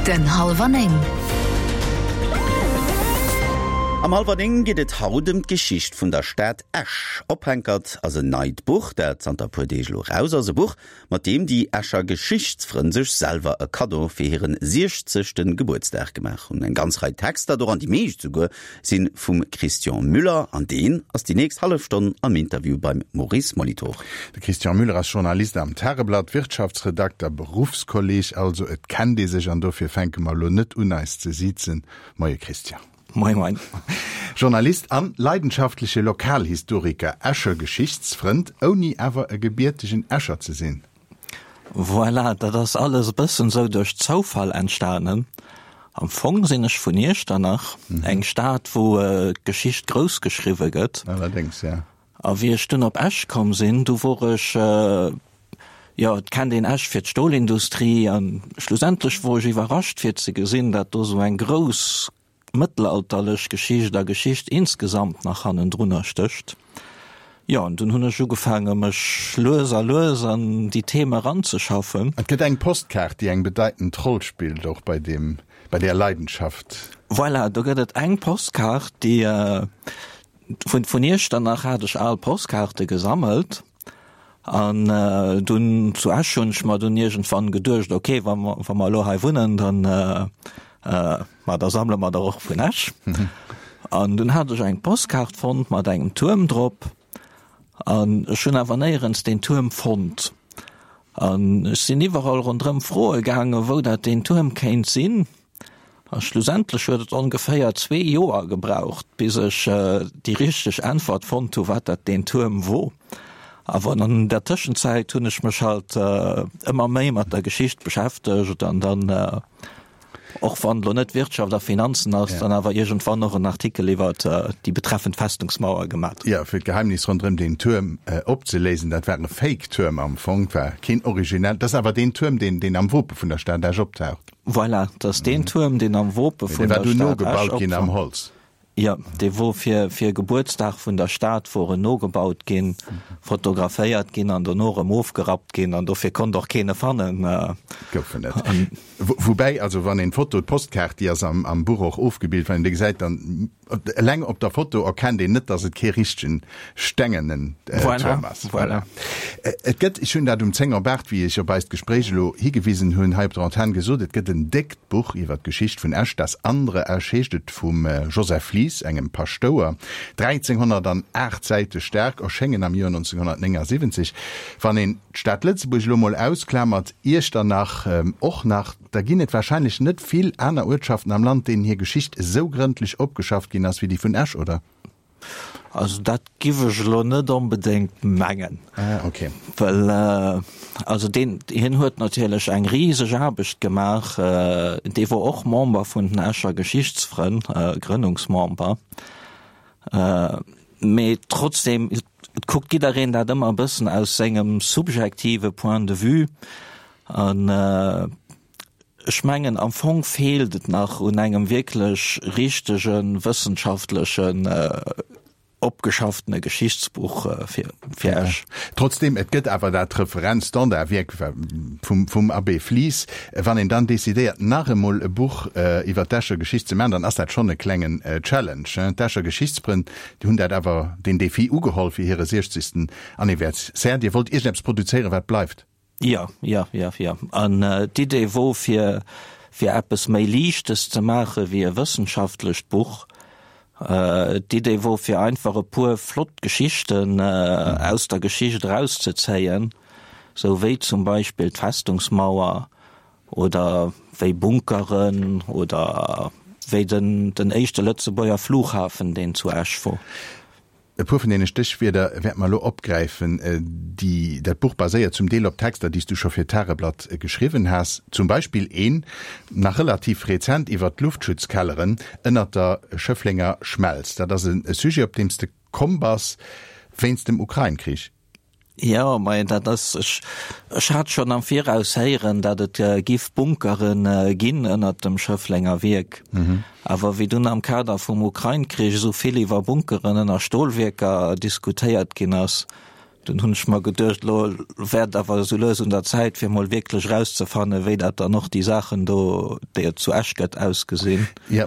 Den Hallwer 9. Am Hallwer 9 geet et haut ëm d'Geschicht vun der Stad Esch. Ophänkert ass en neit Buch, dat zanter e puer Deeg elo raus ass. E Buch, mat deem déi Escher Geschichtsfrënn sech selwer e Kaddo fir hiren siechzegte Gebuertsdag gemaach hunn. Eng ganz Rei Texter, doran déi meescht souguer, si vum Christian Müller an deen ass déi nächst hallef Stonn am Interview beim Maurice Molitor. De Christian Müller ass Journalist am Tageblatt, Wirtschaftsredakter, Beruffskolleg also. Et kennt ee sech an dofir fänke mer elo net un eis ze siezen. Moie Christian. Moie moien. Journalist an leidenschaftleche Lokalhistoriker, Escher Geschichtsfrënd, ouni awer e gebiertegen Escher ze sinn. Voilà, dat ass alles e bëssen esou duerch Zoufall entstanen. Am Fong sinn ech vun Iechternach, eng Stad wou d'Geschicht grouss geschriwwe gëtt. Allerdéngs, ja. A wéi ech dunn op Esch komm sinn, du wor ech, jo, et kennt een Esch fir d'Stolindustrie, a schlussendlech wor ech iwwerrascht fir ze gesinn, dat do sou eng grouss mëttelalterlech Geschicht a Geschicht insgesamt nach hannendrunner stécht. Jo, an dunn hunn ech ugefaange mech lues a lues an déi Theme eranzeschaffen. Et gëtt eng Postkaart, déi eng bedeitend Roll spillt, och bei deem, bei där Leidenschaft. Voilà, do gëtt et eng Postkaart, déi, Vun vun Iechternach hat ech al Postkaarte gesammelt an dunn zu Esch hunn ech mer dunn iergendwann geduecht, ok, wa mer wa mer elo hei wunnen, dann ma da sammele mer der och vun Esch. An dunn hat ech eng Postkaart fonnt mat engem Tuerm drop an ech hunn awer néierens deen Tuerm fonnt. An ech sinn iwwerall ronderëm froe gaangen, wou dat deen Tuerm kéint sinn. A schlussendlech huet et ongeféier zwee Joer gebraucht, bis ech déi richteg Äntwert fonnt hu wat dat deen Tuerm wor. Awer an der Tëschenzäit hunn ech mech halt ëmmer méi mat der Geschicht beschäftegt an dann, och wann elo net Wirtschaft a Finanzen ass, dann awer iergendwann och en Artikel iwwer déi betreffend Festungsmauer gemat. Jo, fir d'Geheimnis ronderëm deen Tuerm opzeléisen, dat war e Fake-Tuerm am Fong, war keen originell, dat ass awer deen Tuerm, deen am Wope vun der Stad Esch optaucht. Voilà, dat ass deen Tuerm, deen am Wope vun der Stad Esch opwar. Jo, dee wor fir fir Gebuertsdag vun der Stad wor en nogebaut ginn, fotograféiert ginn an dono erëm ofgerappt ginn an dofir konnt och keen e fannen. Gouf en net. Woubäi, also wann een d'Foto, d'Postkaart, déi ass am Buch och ofgebilt, wann een déi gesäit, dann Eleng op der Foto erkennt een net, dass et kee richtegen stengenen Tuerm ass. Voilà. Et gëtt, ech hunn dat um 10 op 8, wéi ech op eist Gespréich elo higewisen hunn, hei op der Antenn gesot, et gëtt en déckt Buch iwwer d'Geschicht vun Esch, Das andere Esch heescht et, vum Joseph Lies, engem Paschtouer, 1308 Säite staark, erschéngen am Joer 1979. Wann een d'Stad Lëtzebuerg elo mol ausklamert, Iechternach och nach, Da ginn et warscheinlech net vill aner Uertschaften am Land, deenen hir Geschicht esou grëndlech opgeschafft ginn ass wéi déi vun Esch, oder? Also dat giff ech elo net onbedéngt mengen. Ah, okay. Well also deen, hien huet natierlech eng riseg Aarbecht gemaach. Dee wor och Member vun den Escher Geschichtsfrënn, Grënnungsmember. Mee trotzdem, et kuckt jiddereen dat ëmmer e bëssen aus sengem subjektive Point de vue. An ech mengen, am Fong feelt et nach un engem wierklech richtege wëssenschaftlechen, opgeschafftene Geschichtsbuch fir fir Esch. Trotzdem, et gëtt awer dat Referenz-Standardwierk vum vum Abbé Flies. Wann een dann decidéiert, nach emol e Buch iwwer d'Escher Geschicht ze maachen, dann ass dat schonn e klengen Challenge. D'Escher Geschichtsfrënn, déi hunn dat awer, deen Défi ugeholl fir hire siechzegsten Anniversaire. Dir wollt iergendeppes produzéieren, wat bleift. Jo, jo, jo, jo. An d'Idee wor fir, fir eppes méi Liichtes ze maache wéi e wëssenschaftlecht Buch. D'Idee wor fir einfach e puer flott Geschichten aus der Geschicht erauszezéien, sou wéi zum Beispill d'Festungsmauer oder wéi Bunkeren oder wéi den, den éischte Lëtzebuerger Flughafen, deen zu Esch wor. E puer vun deene Stéchwierder wäerte mer elo opgräifen. Déi, dat Buch baséiert zum Deel op Texter, déi s du scho fir d'Tageblatt geschriwwen has. Zum Beispill een, nach relativ rezent, iwwer d'Luftschutzkelleren ënnert der Schëfflenger Schmelz. Dat ass e Sujet, op deem s de komm bass wéinst dem Ukrain-Krich. Jo, mä dat ass, ech, ech hat schonn am Viraus héieren, datt et giff Bunkere ginn ënnert dem Schëfflenger Wierk. Awer wéi dunn am Kader vum Ukrain-Krich esou vill iwwer Bunkeren ënner Stolwierker diskutéiert ginn ass, Dunn hunn ech mer geduecht, elo wär et awer esou lues un der Zäit, fir emol wierklech erauszefannen, wéi dat dann och déi Saachen do, déi et zu Esch gëtt, ausgesinn. Jo,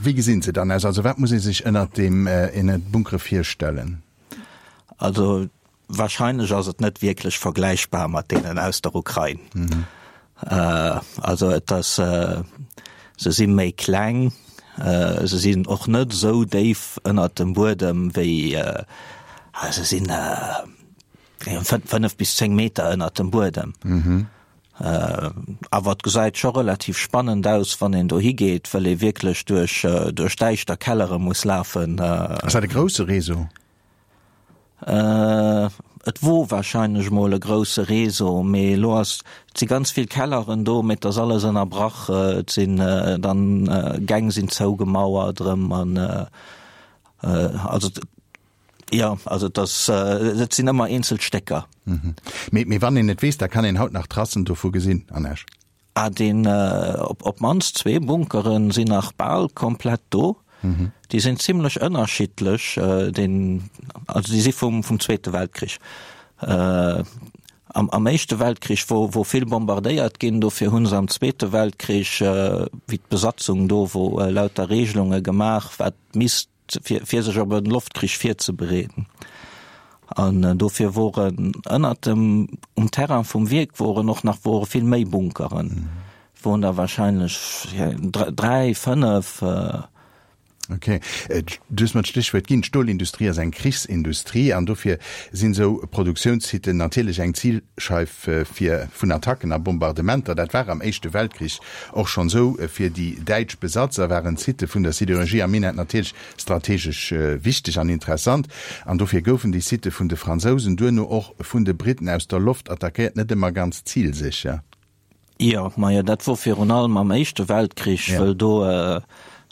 wéi gesinn se dann aus? Also wat muss ee sech ënnert deem, ënnert Bunkere virstellen? Also wahrscheinlech ass et net wierklech vergläichbar mat deenen aus der Ukrain. Also et ass, se si méi kleng, se sinn och net esou déif ënnert dem Buedem wéi, se sinn 5 bis 10 Meter ënnert dem Buedem. Awer et gesäit scho relativ spannend aus, wann een dohi geet, wëll ee wierklech duerch duerch däischter Kellere muss lafen. Ass dat e grousse Réseau? Et wor wahrscheinlech mol e grousse Réseau, mee elo ass, et si ganz vill Kelleren do, mee et ass alles ënnerbrach, et sinn dann Gäng sinn zougemauert erëm an also jo, also et ass, et sinn ëmmer eenzel Stécker. Mee, mee wann een et weess, da kann een haut nach Tracen dovu gesinn an Esch? Ah, deen, op op d'mannst zwee Bunkeren sinn nach bal komplett do. Déi sinn zimlech ënnerschiddlech, deen, also déi si vum vum Zweete Weltkrich. Am am Éischte Weltkrich wor wor vill bombardéiert ginn, dofir hu se am Zweete Weltkrich, wéi d'Besatzung do wor, lauter Regelunge gemaach, wat misst fir, fir sech op e Loftkrich virzebereeden. An dofir woren ënnert dem, um Terrain vum Wierk woren och nach wore vill méi Bunkeren. Woren der wahrscheinlech 3, 5. Ok. Du hues mer d'Stéchwuert ginn, D'Stolindustrie ass eng Krichsindustrie an dofir sinn esou Produktiounssiten natierlech eng Zilscheif fir vun Attacken a Bombardementer. Dat war am Éischte Weltkrich Och schonn esou fir déi däitsch Besatzer waren d'Sitte vun der Sidérurgie am Minett natierlech strategesch wichteg an interessant, an dofir goufen déi Sitte vun de Fransousen, duerno och vun de Britten aus der Loft attackéiert, net ëmmer ganz zilsécher. Jo, majo, dat wor virun allem am Éischte Weltkrich, wëll do,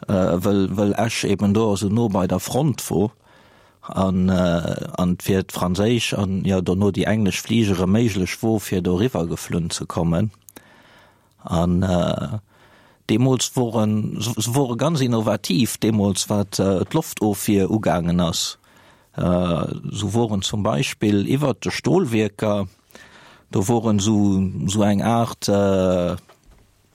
wëll, wëll Esch eben do esou no bei der Front wor an, an et fir d'franséisch an, jo, dono déi englesch Fligere méiglech wor, fir doriwwer geflunn ze kommen. An deemools woren se wore ganz innovativ deemools wat d'Loftofwier ugaangen ass. Sou woren zum Beispill iwwert de Stolwierker, do woren sou sou eng Aart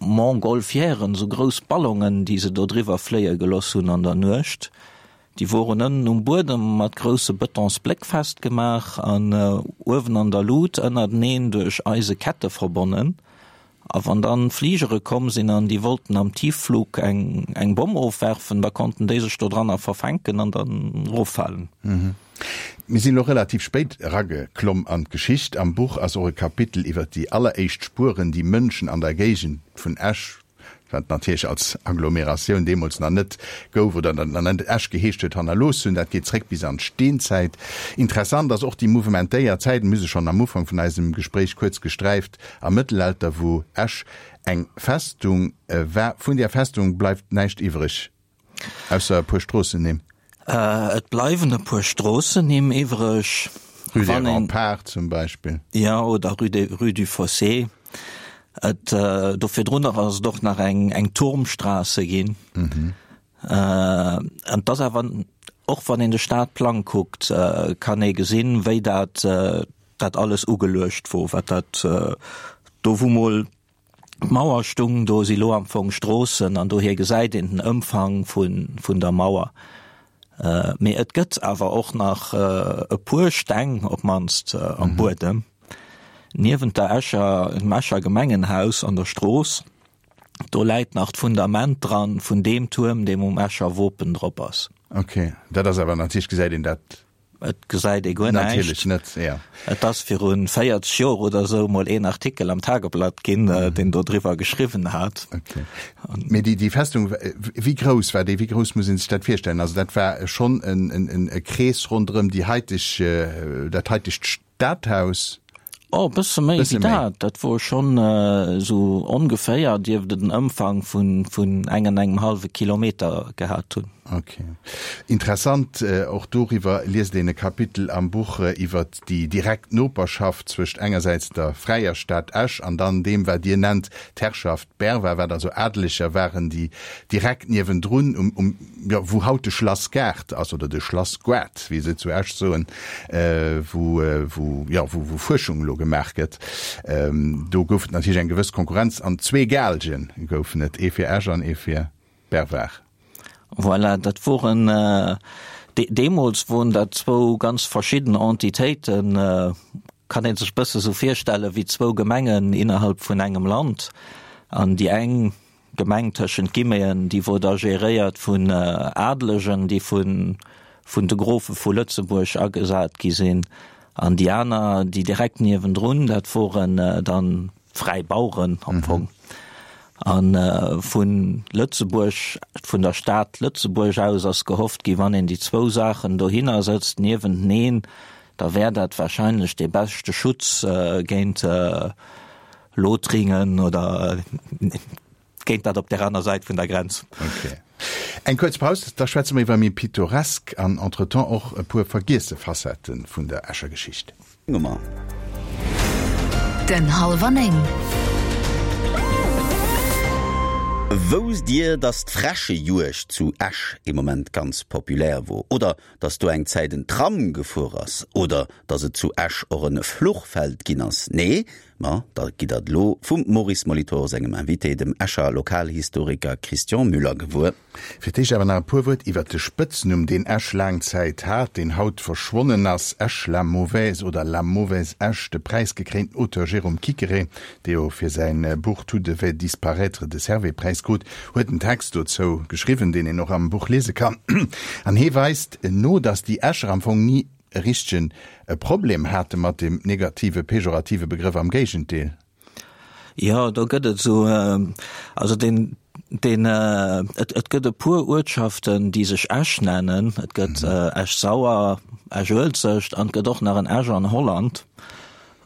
Montgolfièren, sou grouss Ballonen, déi se do driwwer fléie geloss hunn an der Nuecht. Déi woren ënnen um Buedem mat grousse Betonsbléck festgemaach an uewen an der Lut ënnerteneen duerch eise Kette verbonnen. A wann dann Fligere komm sinn an déi wollten am Tiefflug eng eng Bomm ofwerfen, da konnten déi sech dodranner verfänken an dann eroffalen. Mir sinn elo relativ spéit erageklomm an d'Geschicht. Am Buch ass och e Kapitel iwwer déi alleréischt Spueren, déi Mënschen an der Géigend vun Esch, wat natierlech als Agglomeratioun deemools nach net gouf oder nach net Esch geheescht huet, hannerlooss hunn. Dat geet zréck bis an d'Steenzäit. Interessant ass och déi mouvementéiert Zäit, mir hu se schonn am Ufank vun eisem Gespréich kuerz gesträift, am Mëttelalter, wou Esch eng Festung war. Vun där Festung bleift näischt iwwreg. Ausser e puer Stroossennimm. Et bleiwen e puer Stroossennimm iwwreg. Rue des Remparts zum Beispill. Jo, oder Rue des, Rue du Fossé. Et, do virdrunner ass et och nach eng, eng Turmstraße ginn. An et ass awer, och wann een de Stadplang kuckt, kann ee gesinn, wéi dat, dat alles ugeluecht wor, wat dat do wou mol D'Mauer stung, do si lo am Fong Stroossen an dohier gesäit een den Ëmfang vun der Mauer. Mee et gëtt awer och nach e puer Steng op d'mannst am Buedem. Niewent der Escher, dem Escher Gemengenhaus an der Strooss, do läit nach d'Fundament dran vun deem Tuerm, deem um Escher Wopen drop ass. Ok, dat ass awer natierlech, gesäit een dat Et gesäit ee guer näischt. Natierlech net, ja. Et ass viru 40 Joer oder esou mol een Artikel am Tageblatt ginn, deen do driwwer geschriwwen hat. Okay. Mee déi, déi Festung, wéi grouss war déi? Wéi grouss muss ee sech dat virstellen? Also dat war schonn en, en, e Krees ronderëm déi haiteg, dat haitegt Stadhaus? Oh, e bësse méi wéi dat. Dat wor schonn esou ongeféier dierft et en Ëmfang vun, vun eng an engem hallwe Kilometer gehat hunn. Ok. Interessant, och doriwwer liest een e Kapitel am Buch, iwwert déi direkt Noperschaft zwëscht engersäits der fräier Stad Esch an dann deem, wat Dir nennt d'Herrschaft Berwa, wat also Adeleger waren, déi direkt niewendrun um, um, jo, wou haut de Schlassgaart ass, oder de Schlassgoart, wéi se zu Esch soen, wou, wou, jo, wou, wou Fuerschung elo gemaach gëtt. Do gouf et natierlech eng gewëss Konkurrenz an zwee Gaalge goufen et, ee fir Esch an ee fir Berwar. Voilà, dat woren, deemools woren dat zwou ganz verschidden Entitéiten, kann ee sech bësse sou virstelle wéi zwou Gemengen innerhalb vun engem Land. An déi eng Gemeng tëschent Guillemeten, déi wor da geréiert vun Adelegen, déi vun vun de Grofe vu Lëtzebuerg agesat gi sinn, an déi aner, déi direkt niewendrun, dat woren dann fräi Baueren am Fong. A vu Lëtzebuerg, vun der Stad Lëtzebuerg aus ass gehofft gi, wann een déi zwou Saachen dohinner sëtzt niewenteneen, da wär dat wahrscheinlech dee beschte Schutz géint Lothringen oder géint dat op der aner Säit vun der Grenz. Ok. Eng kuerz Paus, da schwätze mer iwwer méi pittoresk an entretemps och e puer vergiesse Facette vun der Escher Geschicht. Nummer. Den Hallwer 9. Wousst Dir, dass d'Fräschejuegd zu Esch ee Moment ganz populär wor? Oder dass do eng Zäit en Tram gefuer ass? Oder dass et zu Esch och en Fluchfeld ginn ass? Nee? Ma da gitt der et elo vum Maurice Molitor sengem Invité, dem Escher Lokalhistoriker Christian Müller gewuer. Fir d'éischt awer nach e puer Wuert iwwert de Spëtznumm, deen Esch laang Zäit hat, deen haut verschwonnen ass, Esch la mauvaise oder la mauvaise Esch. De präisgekréinten Auteur Jérôme Quiquerez, dee jo fir säin Buch Tout devait disparaître de Servais-Präis krut, huet en Text dozou geschriwwen, deen een och am Buch liese kann. An hee weist no, datt déi Escher am Fong ni e richtegen Problem hate mat deem negative, pejorative Begrëff, am Géigendeel. Jo, do gëtt et esou, also deen, deen, et, et gëtt e puer Uertschaften, déi sech Esch nennen. Et gëtt Esch-Sauer, Esch-Uelzecht an et gëtt och nach en Esch an Holland.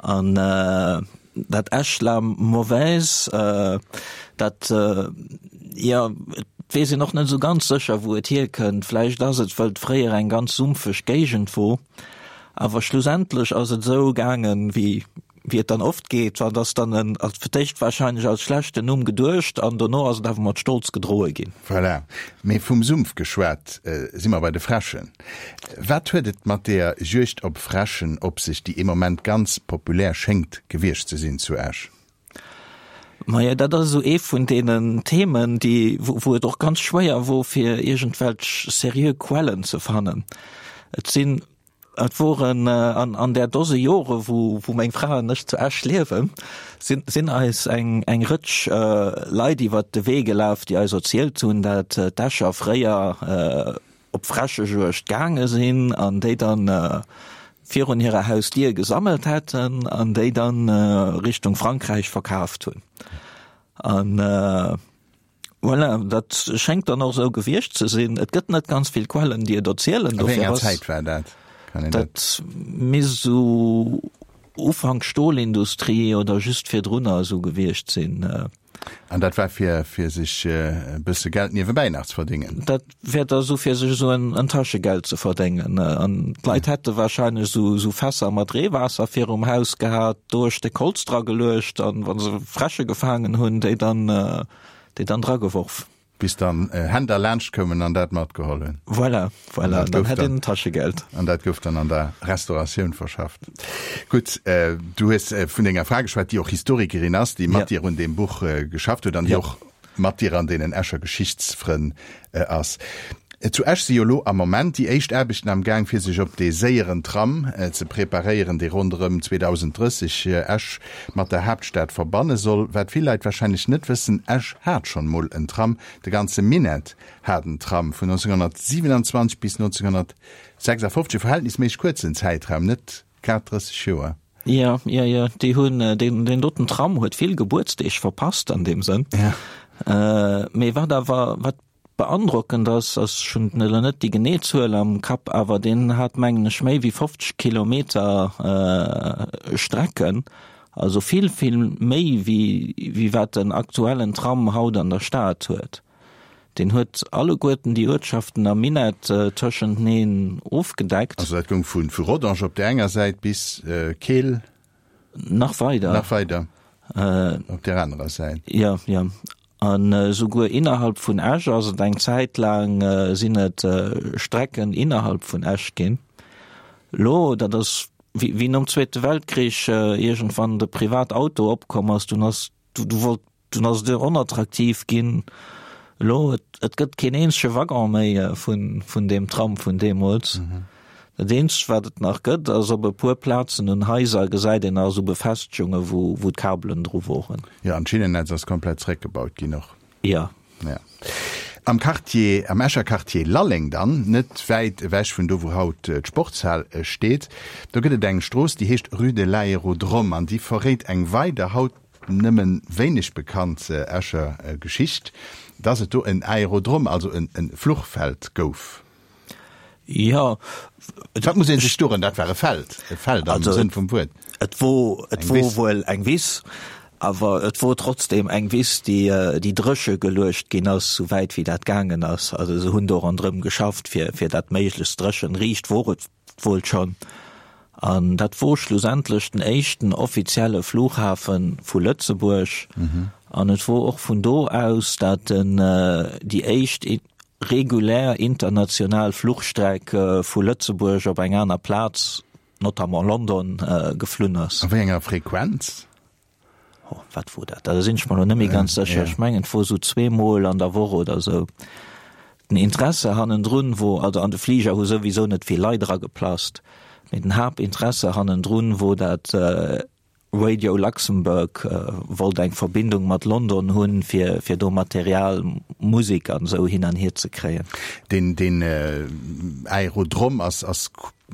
An dat Esch la mauvaise, dat, jo, et weess een och net esou ganz sécher, wou et hierkënnt. Vläicht ass et, wëll et fréier eng ganz sumpfeg Géigend wor. Awer schlussendlech ass et esou gaangen, wéi wéi et dann oft geet, wann ass dann en als fir d'éischt wahrscheinlech als schlechten Numm geduecht an dono ass et awer mat Stolz gedroe ginn. Voilà. Mee vum Sumpf geschwat, si mer bei de Fräschen. Wat huet et mat deeër Juegd op Fräschen op sech, déi ee Moment ganz populär schéngt gewiescht ze sinn zu Esch? Majo, dat ass esou ee vun deenen Themen, déi, wou et och ganz schwéier wor, fir iergendwelch seriö Quellen ze fannen. Et sinn Et woren an an där Dose Jore wou wou meng Fra an ech zu Esch liewen, sinn sinn eis eng eng Rëtsch Leit iwwert de Wee gelaf, déi eis erzielt hunn, dat d'Escher fréier op Fräschejuegd gaange sinn an déi dann virun hirer Hausdier gesammelt hätten an déi dann Richtung Frankräich verkaaft hunn. An Voilà, dat schéngt dann och esou gewiescht ze sinn. Et gëtt net ganz vill Quellen, déi et erzielen. A wéi enger Zäit war dat? Kann een dat? Dat misst esou Ufank Stolindustrie oder just virdrunner esou gewiescht sinn. An dat war fir, fir sech e bësse Geld niewebäi nach ze verdéngen? Dat wär da esou fir sech esou en, en Taschegeld ze verdéngen. An d'Leit hätte wahrscheinlech esou, esou Fässer mat Reewaasser virum Haus gehat, do e Stéck Holz dra geluecht an wa se Fräsche gefaangen hunn, déi dann, déi dann drageworf. Bis dann Händler laanscht koumen an dat matgeholl hunn. Voilà, voilà, an dann hätt een Taschegeld. An dat gouf dann an der Restauratioun verschafft. Gutt, du hues vun denger Fra geschwat, déi och Historikerin ass, déi mat dir un deem Buch geschafft huet an déi och mat dir an deenen Escher Geschichtsfrënn ass. Zu Esch si jo lo am Moment déi éischt Aarbechten am Gaang, fir sech op dee séieren Tram ze preparéieren, dee ronderëm 2030 Esch mat der Haaptstad verbanne soll. Wat vill Leit warscheinlech net wëssen, Esch hat schonn mol en Tram, de ganze Minett hat en Tram, vun 1927 bis 1956, e verhältnisméisseg kuerzen Zäitraum, net grad 30 Joer. Jo, jo, jo, déi hunn, deen, deen doten Tram huet vill Gebuertsdeeg verpasst an deem Sënn. Mee wat awer, wat Beandrockend ass, ass, ech hunn elo net déi genee Zuel am Kapp, awer deen hat mengen ech méi wéi 50 Kilometer Strecken, also vill, vill méi wéi wéi wat den aktuellen Tram haut an der Stad huet. Deen huet alleguerten déi Uertschaften am Minett tëschenteneen ofgedeckt. Also dat goung vu vu Rodange op där enger Säit bis Keel. Nach weider. Nach weider op där anerer Säit. Jo, jo. An esouguer innerhalb vun Esch ass et eng Zäit laang sinn et Strecken innerhalb vun Esch ginn. Lo, dat ass wéi wéi nom Zweete Weltkrich iergendwann de Privatauto opkomm ass, dunn ass du du wollt Dunn ass et onattraktiv ginn. Elo, et gëtt keen eenzege Waggon méi vun, vun deem Tram vun deemools. Dat eenzegt, wat et nach gëtt, ass op e puer Plazen un Haiser gesäit een nach esou Befestegungen, wou, wou d'Kabelen dru woren. Jo, an d'Schinnennetz ass komplett zeréckgebaut ginn och. Jo. Ja. Am Quartier, am Escher Quartier Lalleng dann, net wäit ewech vun do wou haut d'Sportshal steet, do gëtt et eng Strooss, déi heescht Rue de l'Aérodrome an déi verréit eng weider, haut nëmmen wéineg bekannt Escher Geschicht, dass et do en Aérodrome, also en Fluchfeld gouf. Jo. Wat muss ee sech dorën, dat war e Feld, e Feld am Sënn vum Wuert. Et wor, et wor wuel eng Wiss, awer et wor trotzdem eng Wiss, déi, déi dréche geluecht ginn ass, sou wäit wéi dat gaangen ass. Also se hunn do ronderëm geschafft, fir, fir dat méiglechst dréchen. Riicht wor et wuel schonn. An dat wor schlussendlech den éischten offizielle Flughafe vu Lëtzebuerg. An et wor och vun do aus, dat den, déi éischt regulär international Fluchstreck vu Lëtzebuerg op eng aner Plaz, notamment London, geflunn ass. A wéi enger Frequenz? Oh, wat wor dat? Da sinn ech mer elo net méi ganz sécher. Ech mengen, et wor esou zweemol an der Woch oder esou. Den Interesse hannendrun wor, also an de Fliger hu souwisou net vill Leit erageplasst, mee den Haaptinteresse hannendrun wor dat, Radio Luxembourg wollt eng Verbindung mat London hunn, fir fir do Material, Musek an esou hin an hier ze kréien. Deen deen Aerodrom ass ass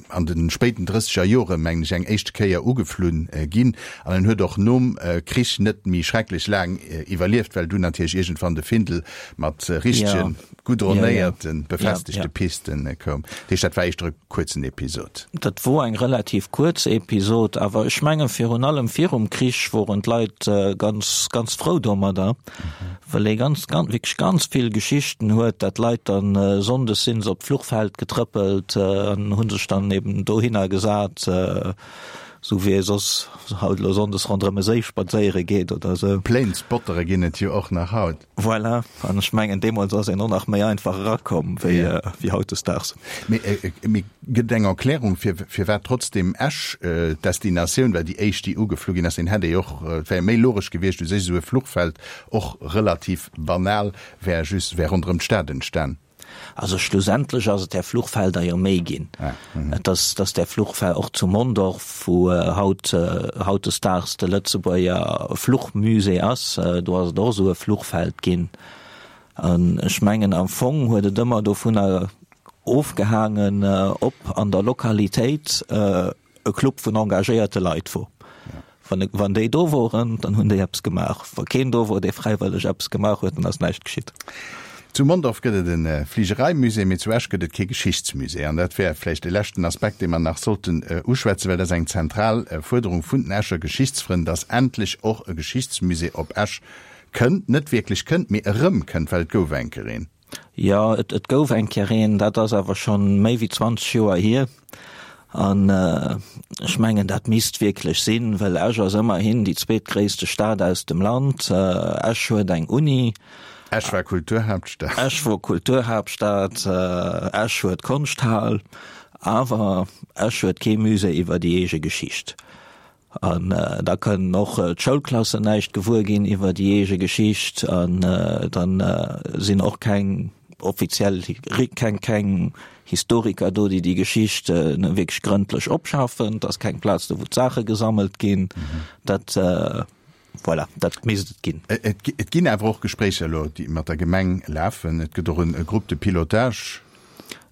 an de spéiten drësseger Jore mengen ech eng éischte Kéier ugeflunn ginn an en huet och nom Krich net méi schrecklech laang iwwerlieft, well dunn natierlech iergendwann de Findel mat richtegen goudronnéierten, befestegte Pisten koum. Dat heescht, dat war éischter e kuerzen Episod. Dat wor eng relativ kuerz Episod, awer ech menge virun allem virum Krich woren d'Leit ganz, ganz frou domadder, well ee ganz, ganz, wierklech ganz vill Geschichten huet, dat d'Leit dann sonndes sinn se op d'Fluchfeld getrëppelt an hu sech dann eben dohinner gesat, esou wéi ee soss haut elo sonndes ronderëm e Séi spadséiere geet oder esou. Planesspottere ginn et jo och nach haut. Voilà, an ech mengen deemools ass een och nach méi einfach erakomm wéi wéi hautdesdaags. Mee mee gëtt et eng Erklärung fir firwat trotzdem Esch d'Destinatioun war, déi éischt déi ugeflu ginn ass? Een hätt ee och, et wär méi logesch gewiescht u sech esou e Fluchfeld, och relativ banal, wär just wär ronderëm d'Stad entstan. Also schlussendlech ass et där Fluchfelder jo méi ginn. Et ass, dass där Fluchfeld och zu Mondorf, wou haut hautdesdaags de Lëtzebuerger Fluchmusée ass, do ass et och esou e Fluchfeld ginn. An ech mengen am Fong huet et ëmmer dovunner ofgehaangen, ob an der Lokalitéit e Club vun engagéierte Leit wor. Wann, wann déi do woren, dann hunn déi eppes gemaach. Wa keen do wor, dee fräiwëlleg eppes gemaach huet, dann ass näischt geschitt. Zu Mondorf gëtt et e Fligereimusée, mee zu Esch gëtt et kee Geschichtsmusée. An dat wär vläicht e leschten Aspekt, dee mer nach sollten uschwätzen, well dat ass eng zentral Fuerderung vun den Escher Geschichtsfrënn, dass endlech och e Geschichtsmusée op Esch kënnt. Net wierklech kënnt, mee erëmkënnt, well et gouf eng Kéier een. Jo, et et gouf eng Kéier een, dat ass awer schonn méi wéi 20 Joer hier. An ech mengen, dat misst wierklech sinn, well Esch ass ëmmerhin déi zweetgréisste Stad aus dem Land. Esch huet eng Uni. Esch war Kulturhaaptstad. Esch wor Kulturhaaptstad. Esch huet d'Konschthal. Awer Esch huet kee Musée iwwer déi eege Geschicht. An da kënnen och d'Schoulklassen näischt gewuer ginn iwwer déi eege Geschicht. An dann sinn och keng offiziell, keng, keng Historiker do, déi déi Geschicht wierklech grëndlech opschaffen. Et ass keng Plaz do, wou d'Saache gesammelt ginn. Dat, voilà, dat misst et ginn. Et ginn awer och Gespréicher elo, déi mat der Gemeng lafen. Et gëtt och e Groupe de pilotage.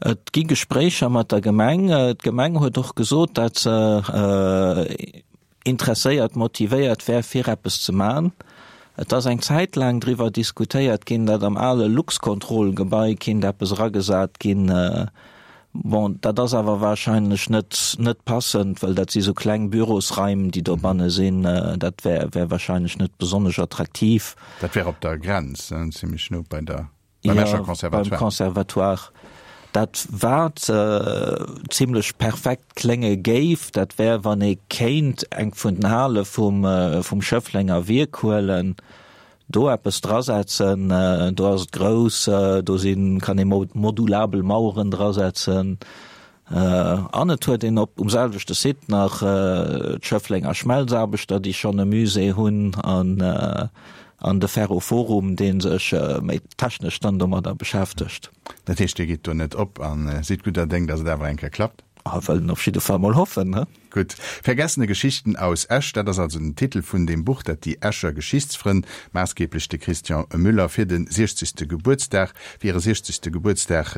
Et gi Gespréicher mat der Gemeng. D'Gemeng huet och gesot, datt se interesséiert, motivéiert wär, fir eppes ze man. Et ass eng Zäit laang driwwer diskutéiert ginn, datt am ale Luxcontrol-Gebai kinnt eppes eragesat ginn. Bon, dat ass awer warscheinlech net, net passend, well dat si sou kleng Bürosraim, déi dobanne sinn. Dat wär, wär warscheinlech net besonnesch attraktiv. Dat wär op der Grenz, zimlech no bei der. Beim Escher Conservatoire. Beim Conservatoire. Dat wat zimlech perfekt klénge géif, dat wär, wann ee kéint eng vun den Hale vum, vum Schëfflenger Wierk huelen, do eppes drasetzen. Do ass et grouss, do sinn, kann ee modulabel Maueren drasetzen. An et huet een op um selwechte Site nach d'Schëfflenger Schmelzaarbechter, déi schonn e Musée hunn, an an de Ferroforum, dee sech méi technesch dann domadder beschäftegt. Dat heescht, Dir gitt do net op a sidd gudder Déng, datt et awer eng Kéier klappt? A wëllen op jidde Fall mol hoffen, he? Gutt. Vergessene Geschichten aus Esch, dat ass also den Titel vun deem Buch, dat déi Escher Geschichtsfrënn, maassgeeblech de Christian Müller, fir de 60. Gebuertsdag, fir hire 60. Gebuertsdag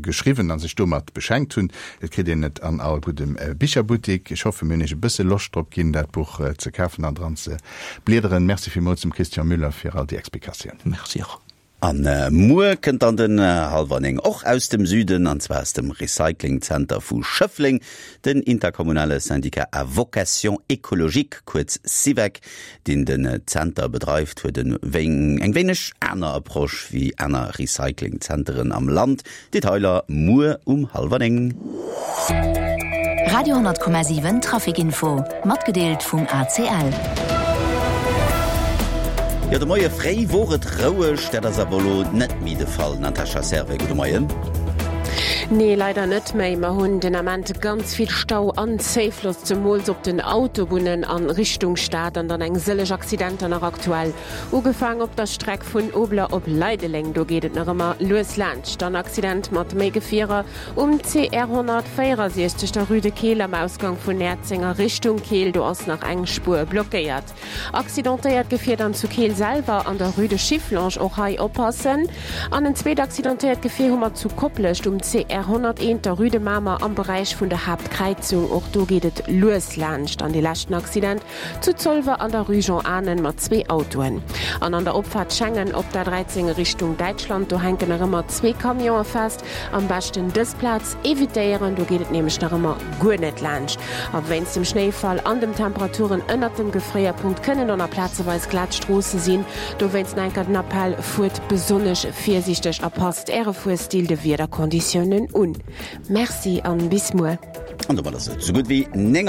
geschriwwen a sech domat beschenkt hunn. Et kritt een et an all guddem Bicherbuttik. Ech hoffen, mir hunn Iech e bësse Loscht drop ginn, dat Buch ze kafen an dran ze bliederen. Merci villmools dem Christian Müller fir all déi Explikatiounen. Merci och. An muer kënnt dann den hallwer 9 och aus dem Süden, an zwar aus dem Recyclingzenter vu Schëffleng. Den interkommunale Syndicat à vocation écologique, kuerz SIVEC, deen den Zenter bedreift, huet en eng wéineg aner Approche wéi aner Recyclingzenteren am Land. Detailer muer um hallwer 9. Radio 10,7 Trafic Info, matgedeelt vum ACL. Jo, de Moie fréi wor et roueg, dat ass awer elo net méi de Fall. Natascha Servais, gudde Moien. Nee, leider net méi. Mer hunn den Ament ganz vill Stau an Zéifloss, zemools op den Autobunnen a Richtung Stad an dann eng sëlleg Accidenter nach aktuell. Ugefaang op der Streck vun Obler op Leideleng, do geet et nach ëmmer lues laanscht. Dann Accident mat méi Gefierer um CR 164, der Rue de Keel am Ausgang vun Näerzeng a Richtung Keel, do ass nach eng Spuer blockéiert. Accidentéiert Gefier dann zu Keel selwer an der Rue de Schifflange, och hei oppassen. An en zweet accidentéiert Gefier hu mer zu Koplescht um CR 101, der Rue de Mamer am Beräich vun der Haaptkräizung, och do geet et lues laanscht. An dee leschten Accident Zu Zolwer an der Rue Jean Anen mat zwee Autoen. An an der Opfaart Schengen op der 13 Richtung Däitschland, do hänken nach ëmmer zwee Camionë fest. Am beschten dës Plaz evitéieren, do geet et nämlech nach ëmmer guer net laanscht. A wéinst dem Schnéifall an dem Temperaturen ënnert dem Gefréierpunkt kënnen och nach plazeweis glat Stroosse sinn. Dowéinst nach eng Kéier den Appell, Fuert besonnesch virsiichteg a passt Äre Fuerstil de Wiederkonditiounen un. Merci an bis muer. An domat ass et esou gutt wéi 9.